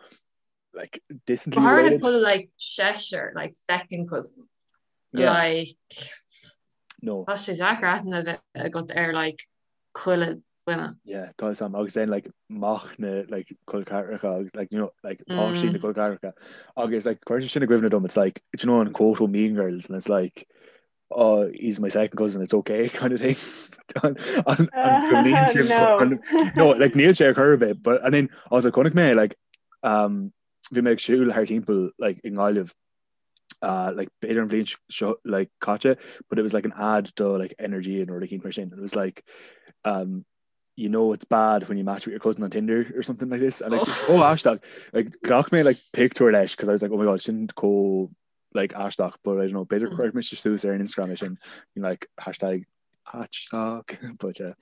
like, distantly related. Go háirithe like, seisear, like, second cousins. Yeah. Like, no. Tá sé deacair aithne a bheith agat ar, like, chuile dhuine. Yeah, tá fhios a'm agus then like mac na like col ceathracha agus like you know like páistí na col ceathracha agus like cuireann sé sin i gcuimhne dom it's like do you know an quote ó Mean Girls and it's like oh he's my second cousin it's okay kind of thing an an an no. an no like níl sé ar chor ar bith but and then also chonaic mé like um bhí mé ag siúl thar timpeall like i nGaillimh uh, like b'fhéidir an bhliain seo like caite but it was like an ad do like energy and rud éicint mar sin it was like um you know it's bad when you match with your cousin on Tinder or something like this and oh, oh aisteach like ghlac mé like picture leis because I was like oh my god sin chomh like aisteach but I don't know b'fhéidir mm. cuirfidh mise suas ar an Instagram é sin you know, like hashtag aisteach but uh,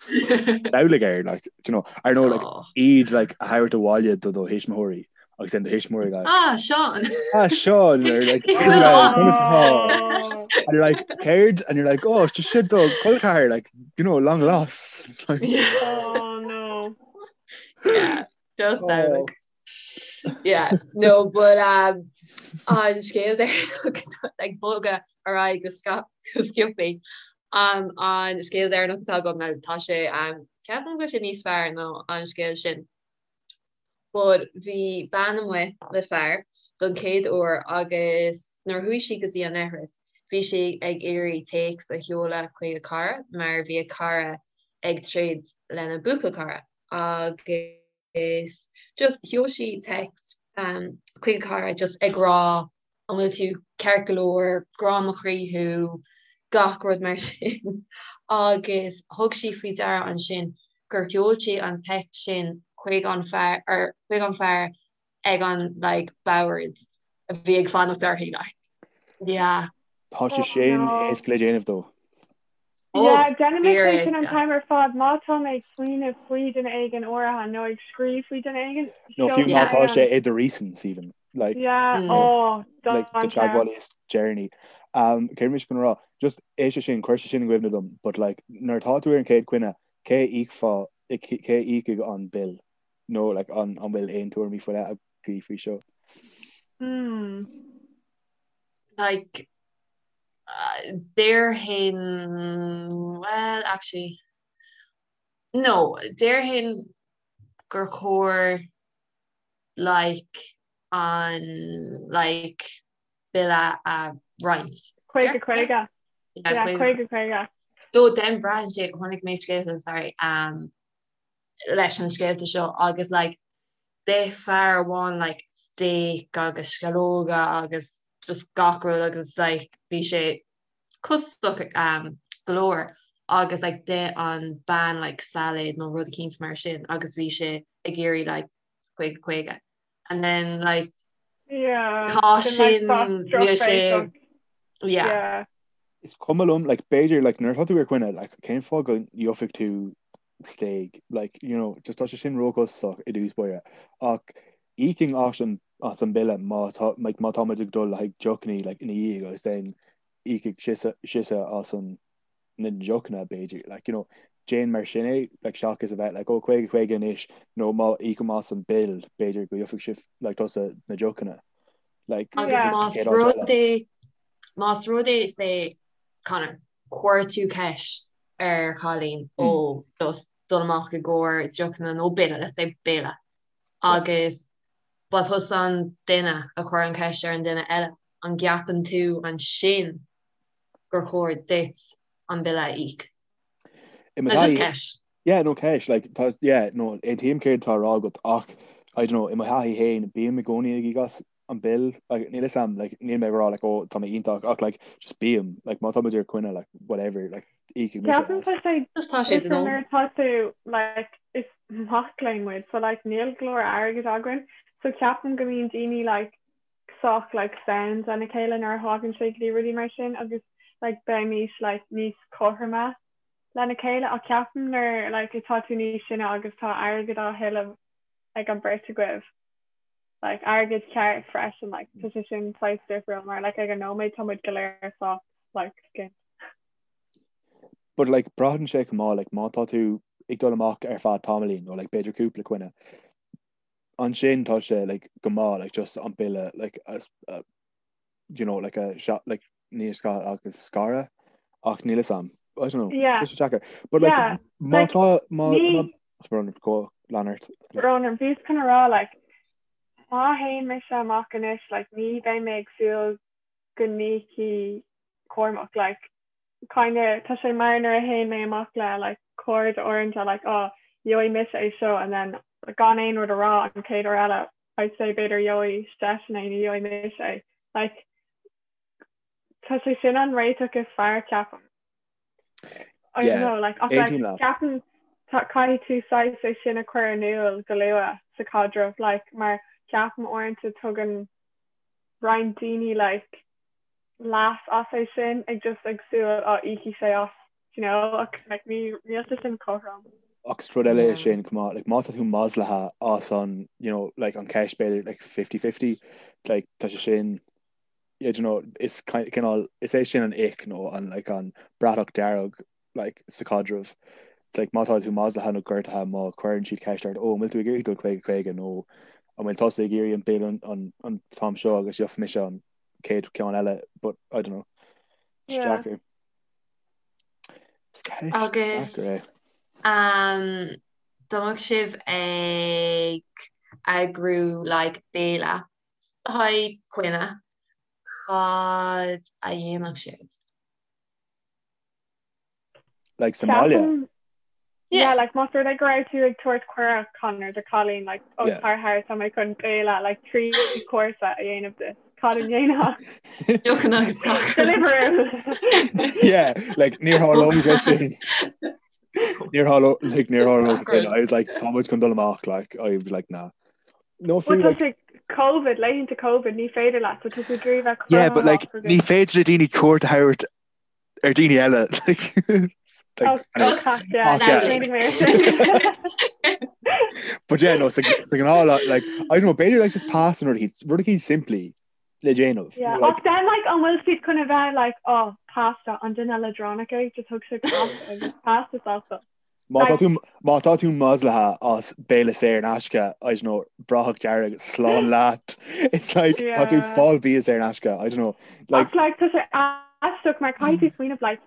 samhlaigh air like you know I know like iad like a thabhairt abhaile do do thuismitheoirí agus then do thuismitheoirí like ah Sean ah Sean or like and you're like céard and you're like oh it's just shit do chol ceathar like you know long lost it's like yeah. oh no yeah just oh. like Yeah, no, but um, an scéal deireanach ag bogadh ar aghaidh go go sciobtha. Um, an scéal deireanach atá agam ná tá sé um, ceapaim go bhfuil sé níos fearr ná an scéal sin. But bhí bean amuigh le fear don chéad uair agus nuair a chuaigh sí go dtí an leithreas, bhí sí ag iarraidh téacs a sheoladh chuig a cara mar bhí a cara ag troid lena buachaill cara agus is just sheol sí text chuig a cara just ag rá an bhfuil tú ceart go leor, grá mo chroí thú, gach rud mar sin agus thug sí faoi deara ansin gur sheol sí an text sin chuig an fear or chuig an fear ag an like bord a bhí ag fanacht uirthi like yeah. Tá sé sin éasca le déanamh dó. Yeah, déanaim é sin an t-am ar fad má tá mé ag smaoineamh faoi duine éigin áirithe nó ag scríobh faoi duine éigin. Nó fiú má tá sé i do recents even. Like, yeah, mm. oh, like, do teagmhálaí is deireanaí. Um, céard mise chun rá, just é sé sin, chuir sé sin i gcuimhne dom, but like, nuair atá tú ar an chéad choinne, cé íocfá, cé íocfaidh an bill? Nó like, an, an bhfuil aon tuairimí faoi leith agaibh faoi seo? Mm. Like, Déarfainn, well, actually, no, déarfainn gur chóir like an like bille a roinnt. 50 50. Yeah, 50 50. Though then braitheann sé, chonaic mé scéalta, sorry, um, leis an scéalta seo agus like d'ith fear amháin like steak agus sceallóga agus just gach rud agus like bhí sé costasach um, go leor agus like d'ith an bean like salad nó rud eicínt mar sin agus bhí sé ag iarraidh like 50 50 and then like yeah tá sin níl sé yeah. yeah. Is cuma liom like b'fhéidir like nuair atá tú ar coinne like cén fáth go ngeobhaidh tú stéig like you know just tá sé sin róchostasach i dtús báire ach íocfainn as an as an bille má tá like má tá muid ag dul le haghaidh deochanna like ina dhiaidh agus then íocfaidh sise sise as an na deochanna b'fhéidir like you know déan mar sin é like seachas a bheith like oh 50 50 anois nó má íocaim as an bill b'fhéidir go gheobhaidh sibh like tusa na deochanna like Agus más rud é más rud é say Conor chuir tú ceist ar chailín ó just dul amach i gcomhair deochanna nó béile, let's say béile, agus ba tusa an duine a chuir an cheist ar an duine eile. an gceapann tú ansin gur chóir duit an bille a íoc? I mo That's just ceist. Yeah, no ceist, like, tá, yeah, no, aontaím céard atá á rá agat ach, I don't know, i mo thaithí féin, bím i gcónaí ag íoc as an bill, like, níl 'fhios a'm, like, níl mé ag rá, like, oh, tá mé iontach, ach, like, just bím, like, má tá muid ar coinne, like, whatever, like, íocfaidh mise Ceapaim tá as. sé Just tá sé de difriúil nós. nuair atá tú, like, is mac léinn muid, so, like, níl go leor airgid againn, so ceapaim go mbíonn daoine, like, sách, like, sound lena chéile nuair a thagann sé go dtí rudaí mar sin agus, like, beimis, like, níos cothroime lena chéile ach ceapaim nuair, like, atá tú níos sine agus tá airgead á thuilleamh ag an beirt agaibh, like, airgead ceart freisin, like, tá sé sin saghas difriúil mar, like, ag an nóiméad tá muid go léir sách, like, skint. But, like, braitheann sé chomh maith, like, má tá tú ag dul amach ar feadh tamaillín nó, like, b'fhéidir cúpla coinne, ansin tá sé, like, go maith, like, just an bille, like, a, a, you know, like, a, like, ní sca agus scaradh ach níl 'fhios a'm. I don't know. Yeah. Tá sé deacair. But like, Yeah, má like, tá má ní- má Brón go lean ort. Brón, bhíos chun a rá, like, má théann mise amach anois, like, ní bheidh mé ag súil go n-íocfaidh Cormac, like, kinda, tá sé mar nuair a théann mé amach le, like, cairde uaireanta, like, oh, gheobhaidh mise é seo, and then gan aon rud a rá an chéad uair eile, I'd say b'fhéidir gheobhaidh seisean é nó gheobhaidh mise é. Like, tá sé sin an réiteach is fearr, ceapaim. I don't know, like, ach like, ceapaim caithfidh tú saghas é sin a chur in iúl go luath sa chaidreamh, like, mar ceapaim uaireanta tugann roinnt daoine like leas as é sin ag just ag súil á íocfaidh sé as, you know, ach like ní níl sé sin cothrom. Ach is rud eile é sin chomh maith, like má tá tú maslaithe as an, you know, like an ceist b'fhéidir like 50-50, like tá sé sin yeah, do you know, is cineál, is é sin an ick nó an like an bratach dearg like sa chaidreamh. It's like má tá tú maslaithe nó gortaithe má chuireann siad ceist ort, ó an bhfuil tú ag iarraidh dul 50 50 nó an bhfuil tusa ag iarraidh an bill an, an, an t-am seo agus gheobhaidh mise an chéad ceann eile, but I don't know. It's Yeah. deacair. Is ceist Agus deacair é. um, dá mbeadh sibh ag eagrú like béile Le haghaidh coinne, cad a dhéanfadh sibh? Like sa mbaile? Ceapaim, yeah, like más rud é go raibh tú ag tabhairt cuireadh Conor do cailín, like, ó Yeah. tar thart tá mé chun béile, like, 3 chúrsa a dhéanamh duit. Cad a dhéanfá? Deochanna agus gach rud. Deliveroo. Yeah, like níor tharlódh sé sin. Níor tharlódh, like níor tharlódh sin. I was like, tá muid chun dul amach, like, I was like, nah. No Well fiú tá like sé COVID, laethanta COVID, ní féidir leat, so tá tú ag iarraidh bheith Yeah, but like cruthaitheach ní agus féidir le daoine cuairt a thabhairt ar daoine eile like Oh, like anyway. oh, yeah, Ach, yeah. smaoinigh mé ar sin. But yeah, no, sa sa gnáth like like, I don't know, b'fhéidir like just pasta nó rud eicínt rud eicínt simplí le déanamh. Yeah, Nó, like ach then like an bhfuil siad chun a bheith like oh pasta an duine leadránach é just thug sé pasta agus pasta sásta. Má tá tú má tá tú maslaithe as béile saor in aisce, I don't know, bratach dearg slán leat. It's like tá tú ag fáil bia saor in aisce, I don't know. Like Ach like tá sé aisteach mar caithfidh tú smaoineamh like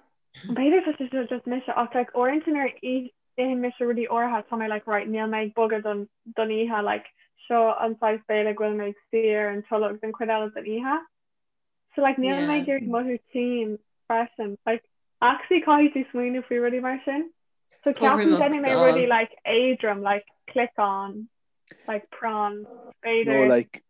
b'fhéidir tá sé seo just mise ach like uaireanta nuair a itheann mise rudaí áirithe tá mé like right níl mé ag bogadh don don oíche like seo an saghas béile go bhfuil mé ag suí ar an tolg don chuid eile den oíche. So like níl mé ag iarraidh mothú tinn freisin. Like actually caithfidh tú smaoineamh faoi rudaí mar sin. So ceapaim déanfaidh mé rudaí like éadrom like cliceán like prawn b'fhéidir. Nó like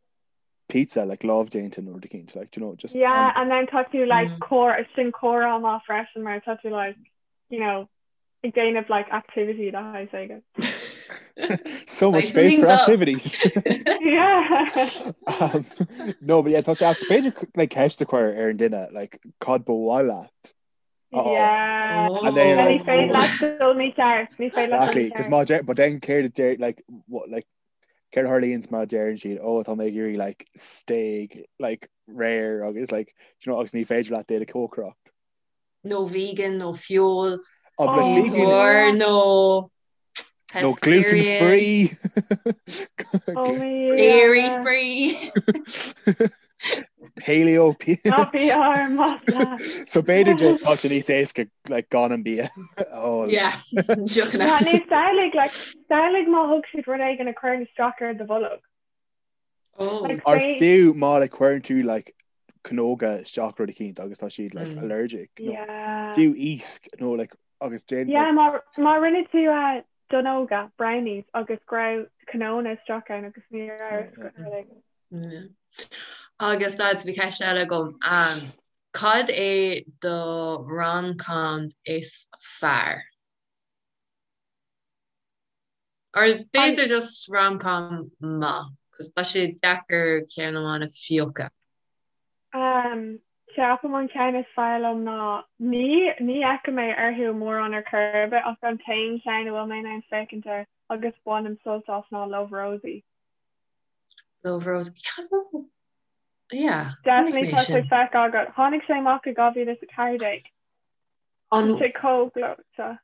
pizza like lámhdéanta nó rud eicínt like do you know just Yeah and then tá tú like comhrá sin comhrá maith freisin mar tá tú like you know ag déanamh like activity de shaghas éigin. So much space for activities. Yeah. Um, no, but yeah, tá sé b'fhéidir like ceist a chur ar an duine like cad ba mhaith leat. Oh. Yeah. And then Ní like, féidir leat dul mícheart, ní féidir leat dul Exactly, because mícheart. má deir- but then céard a deir like what like céard a tharlaíonns má deireann siad oh tá mé ag iarraidh like steak like rare agus like do you know agus ní féidir leat é a chócaireacht. nó vegan nó feoil Oh, but Oh, vegan or nó nó gluten pescatarian, free. Oh my dairy yeah. free. Paleo Ná bí ár masla. So b'fhéidir just tá sé níos éasca like gan an bia. Oh, Yeah, Yeah, deochanna. nó samhlaigh like samhlaigh má thug siad rud éigin a chuireann isteach ar do bholg. Oh. Like Or say fiú má like cuireann tú like cnóga isteach rud eicínt agus tá siad like Mm. allergic nó Yeah. fiú iasc nó like agus déan Yeah, like má má rinne tú uh, donnóga, brownies agus go raibh cnónna isteach ann agus ní raibh yeah. yeah. like, Yeah. Agus lads, bhí ceist eile agam. Um, cad é do rom-com is fearr? Or An b'fhéidir just rom-com maith, 'cause tá sé deacair ceann amháin a phiocadh. Um, ceapaim an ceann is fearr liom ná ní ní fhéachaim mé orthu mórán ar chor ar bith ach an t-aon cheann a bhfuil mé in ann féachaint air agus bainim sult as ná Love Rosie. Love Rosie. Yeah, yeah, chonaic Definitely mé tá sé sin. feicthe agat. Tháinig sé amach i 2014. Tá An sé chomh gleoite.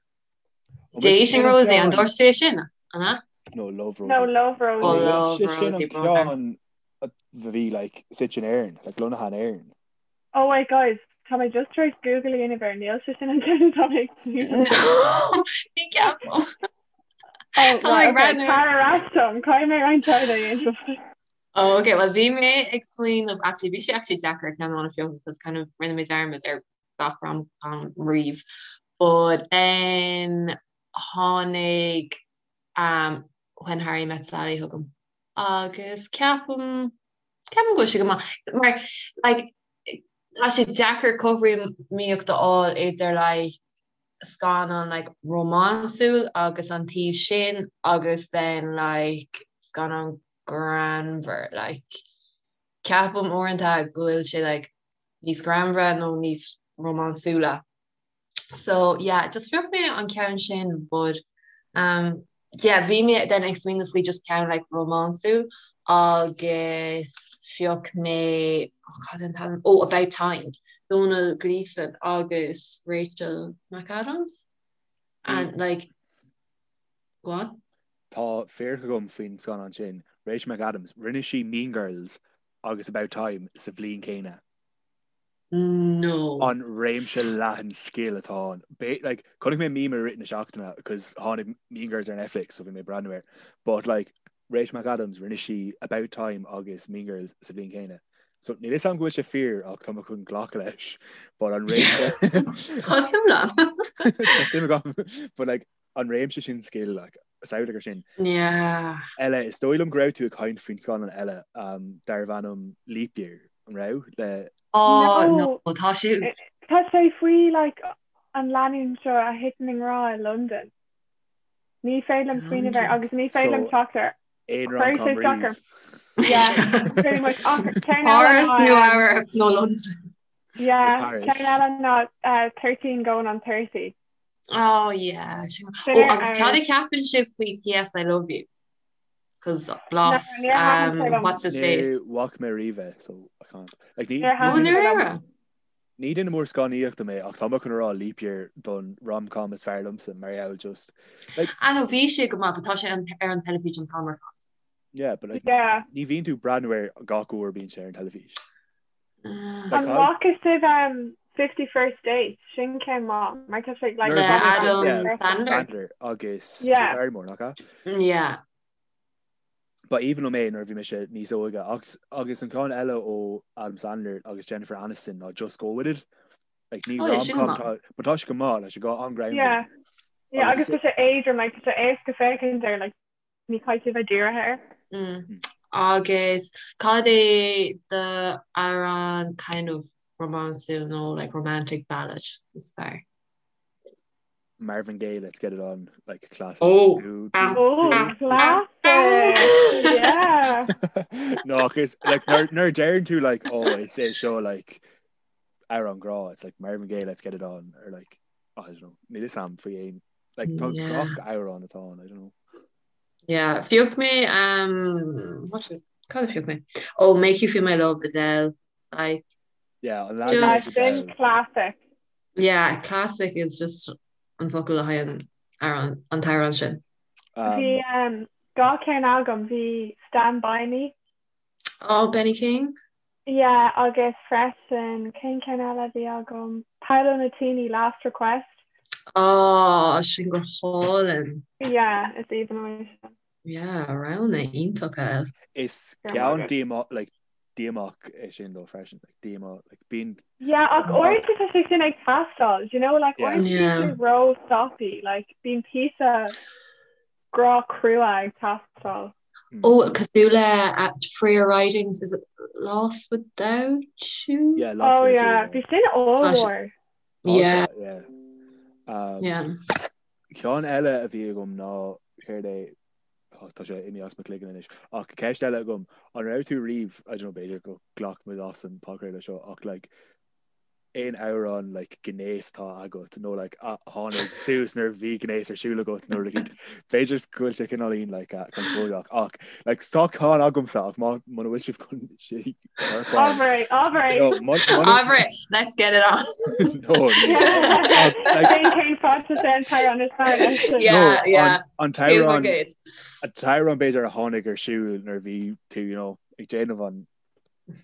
Ó mise Dating sin an Rosie, an ceann dúirt sé sin, an ea? No Love No, Rosie. Love Oh, Rosie. Love Sé sin Rosie, an brother. ceann a bhí like suite in Éirinn, like lonnaithe in Éirinn. Oh wait guys, tá mé just tar éis Google a dhéanamh air, níl sé sin an ceann atá mé ag smaoineamh air. No, ní ceapaim. Oh Tá mé right, ag okay, breathnú. tar ar ais dom, caithfidh mé roinnt oibre a dhéanamh. Oh, okay, well bhí mé ag smaoineamh, actually bhí sé actually deacair ceann amháin a phiocadh because kind of rinne mé dearmad ar gach rom-com riamh. But then tháinig um, When Harry Met Sally chugam agus ceapaim ceapaim go bhfuil sé go maith mar like tá sé deacair cothromaíocht a fháil idir like scannán like rómánsúil agus an taobh sin agus then like scannán greannmhar like ceapaim uaireanta go bhfuil sé like níos greannmhaire nó níos rómánsúla. So yeah, just phioc mé an ceann sin but um, yeah, bhí mé then ag smaoineamh faoi just ceann like rómánsúil agus phioc mé oh, cad an t-ainm? Oh, About Time, Domhnall Gleeson agus Rachel McAdams and like go on. Tá fíric agam faoin scannán sin, Rachel McAdams, rinne sí Mean Girls agus About Time sa bhliain céanna. No. An réimse leathan scil atá ann. Like, chonaic mé meme i rith na seachtaine cos tháinig Mean Girls ar Netflix so bhí mé ag breathnú air. But like, Rachel McAdams, rinne sí About Time agus Mean Girls sa bhliain céanna. So níl fhios agam go bhfuil sé fíor ach tá mé chun glacadh leis. But an réimse Tá suim agam. Tá suim agam. But like, an réimse sin scil like, samhlaigh ar sin. Yeah. Eile, is dóigh liom go raibh tú ag caint faoin scannán eile um, darbh ainm Leap Year, an raibh? Le Oh, no, no, tá sé Tá sé faoi like, an lánúin seo a thiteann i ngrá i London. Ní féidir liom smaoineamh air agus ní féidir liom teacht air. Aon rom-com riamh. Yeah, pretty much. Ach ceann eile Páras, ná, Nua um, Eabhrac nó London. yeah, Paris. ceann eile ná uh, 13 going on 30. Oh yeah. Sin Sin Oh ar agus cad a fheabhas. cheapann sibh faoi PS I love you? Cos No, blas níor thaitin sé um liom. what's his face? Ní bhfaca mé riamh é, so I can't. Like, ní, Níor ní Oh thaitin duine, sé liom. ndáiríre? ní duine mór scannánaíochta mé ach tá mé chun a rá Leap Year don rom-com is fearr liomsa mar gheall just like Ah no bhí sé go maith but tá sé an, ar an teilifís an t-am ar fad. yeah but like Yeah. ní bhíonn tú ag breathnú air gach uair a bíonn sé ar an teilifís. An Like, bhfaca sibh um, 50 First Dates? Sin ceann maith, mar tá sé like Nuair a Le bhí mé Adam yeah, Sandler. Sandler agus Drew Yeah. Barrymore, nach ea? Yeah. Ba aoibhinn liom é nuair a bhí mise níos óige agus agus an ceann eile ó Adam Sandler agus Jennifer Aniston ná Just Go With It. Like, ní Oh yeah, sin rom-com maith. tá but tá sé go maith, like, sé go an-ghreannmhar. Yeah. Yeah, Agus agus tá sé éadrom, like, tá sé éasca féachaint air, like, Ní chaithfidh tú bheith dírithe air. Mm. Agus cad é do amhrán kind of rómánsúil nó like romantic ballad is fearr? Marvin Gaye, Let's Get It On, like classic. Oh. Do, do, Oh, do, do. classic! Yeah. No, cos like nuair nuair a deireann tú like oh is é seo like amhrán grá, it's like Marvin Gaye, Let's Get It On or like I don't know, níl fhios a'm faoi aon Like tá Yeah. gach amhrán atá ann, I don't know. Yeah, phioc mé um, what did- cad a phioc mé? Oh, Make You Feel My Love, Adele. Like, Yeah, an Just- leagan Yeah, is sin Adele. classic. yeah, classic is just an focal le haghaidh an amhrán an t-amhrán sin. Um, Bhí um, dá ceann agam, bhí Stand By Me. Oh, Benny King? Yeah, agus freisin, cén ceann eile a bhí agam? Paolo Nutini, Last Request. Oh, sin go hálainn. Yeah, is aoibhinn liom é sin. Yeah, roghanna iontacha. Is Go raibh ceann maith agat. díomá like. díomách é sin dó freisin, like díomá, like bíonn. Yeah, ach uaireanta tá sé sin ag teastáil, do you know, like uaireanta bíonn sé ró soppy, like bíonn píosa grá crua ag teastáil. Ó, cosúil le Freya Ridings, is it Lost Without You? Yeah, Lost Oh Without You, yeah, yeah. bhí sin ollmhór. Yeah. Yeah. Um, Yeah. Ceann eile a bhí agam ná céard é oh, tá sé imithe as mo chloigeann anois ach ceist eile agam an raibh tú riamh I don't know b'fhéidir go glac muid as an podchraoladh seo ach like aon amhrán like gnéas atá agat nó like a tháinig suas nuair a bhí gnéas ar siúl agat nó like b'fhéidir go bhfuil sé cineáilín like uh, conspóideach ach like tá ceann agamsa ach má muna bhfuil sibh chun sé Ábhar é, ábhar é. No, mun- mun- Ábhar é, let's get it on. no, no. Ach, like, Cén cén fad sa an t-amhrán is fearr leis sin? Yeah, no, yeah. an, an Feels t-amhrán good. an t-amhrán b'fhéidir a tháinig ar siúl nuair a bhí tú you know, ag déanamh an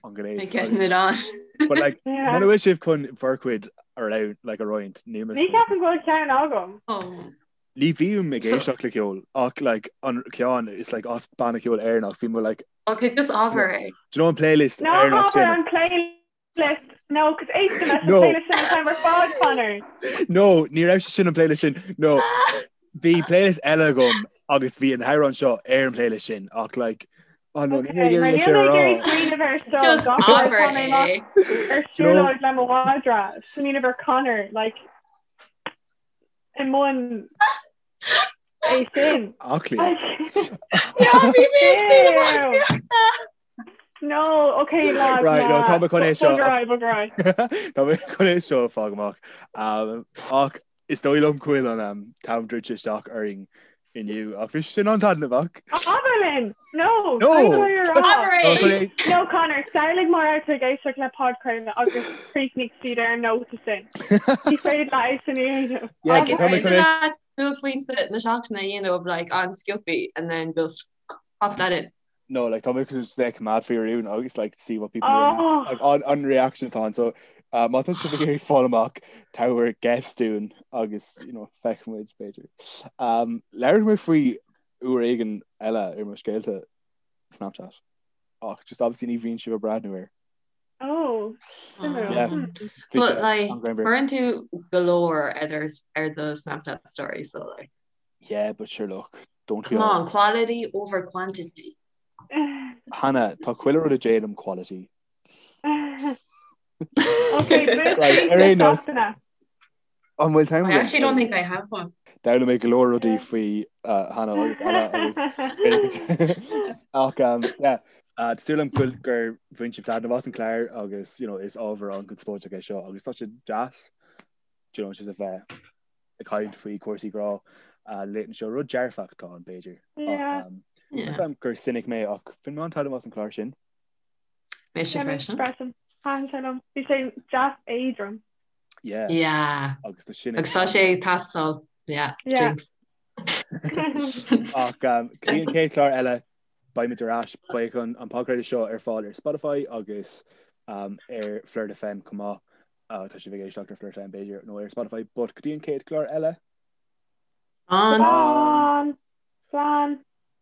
an gnéas. Like getting it on. But like Yeah. muna bhfuil sibh chun bhur gcuid a roinnt like a roinnt ní Ní ceapaim go bhfuil ceann agam. Oh. Ní bhím ag So- éisteacht le ceol ach like an ceann is like as banna ceoil Éireannach bhí mé like Okay, just ábhar é. do you know an playlist Ná Éireannach hábhar sin? an playlist. No, cos éistim leis an No. playlist sin an t-am ar fad, Conor. No, ní raibh sé sin an playlist sin. No, bhí playlist eile agam agus bhí an t-amhrán seo ar an playlist sin ach like oh no, ní Okay, mé mar ag níl iarraidh mé ag sé a iarraidh rá. smaoineamh air seo Just gach uair ábhar tá mé amach é. ar siúlóid le mo mhadra, smaoineamh ar Conor, like i mbun é sin. Aclaí. Yeah, bhí mé ag déanamh Ew. aclaíochta. No, okay, lad, Right, no, tá mé chun é seo. Bog ar aghaidh, bog ar aghaidh. Tá mé chun é seo a fháil amach. Um, ach is dóigh liom go bhfuil an um, t-am druidte isteach orainn inniu ach bhí sin an-taitneamhach. Abair linn! No! No! Caithfidh mé a rá. Abair Tá é! chun é- No, Conor, samhlaigh mar atá tú ag éisteacht le podchraoladh agus chríochnaigh siad ar an nóta sin. Ní féidir leat é sin a dhéanamh. Yeah, Like, is tá mé féidir chun é- leat buaicphointe na seachtaine a dhéanamh of like an-sciobtha and then just pop that in. No, like tá mé chun just like coimeád faoi rún agus like see what people Oh. react like an, an reaction atá ann. So uh, má tá sibh ag iarraidh fáil amach tabhair guess dúinn agus you know, feicfidh muid b'fhéidir. Um, Labhróidh mé faoi uair éigin eile ar mo scéalta Snapchat. Ach just obviously ní bhíonn sibh ag breathnú air. Oh, suimiúil. Yeah. Hmm. Bhí But sé like an-ghreannmhar. cuireann tú go leor ar ar do Snapchat story so like Yeah, but sure look, don't we come all? on, quality over quantity. Hannah, tá chuile rud a déanaim quality. Okay, Right, ar aon nós. seachtaine. An bhfuil t-am I actually don't think I have one. D'fhoghlaim mé go leor rudaí faoi uh, Hannah agus Anna agus ach um, yeah, uh, tá súil agam go gur bhain sibh taitneamh as an chlár agus you know, is ábhar an-chonspóideach é seo agus tá sé deas do you know, just a bheith ag caint faoi cúrsaí grá uh, laethanta seo rud dearfach atá ann b'fhéidir. Ach, Yeah. um, Yeah. Measaim gur cynic mé ach bhain mé an-taitneamh as an chlár sin. Mise Yeah, mise freisin. freisin. Thaitin sé liom. Bhí sé deas éadrom. Yeah. Yeah. Agus tá sin Agus tá sé ag teastáil. Yeah. Yeah. Drinks. Ach um, go dtí an chéad chlár eile beimid ar ais beidh an, an podchraoladh seo ar fáil ar Spotify agus um, ar Flirt FM chomh maith. Uh, tá sibh ag éisteacht ar Flirt FM b'fhéidir nó ar Spotify, but go dtí an chéad chlár eile. Slán. Slán. Slán.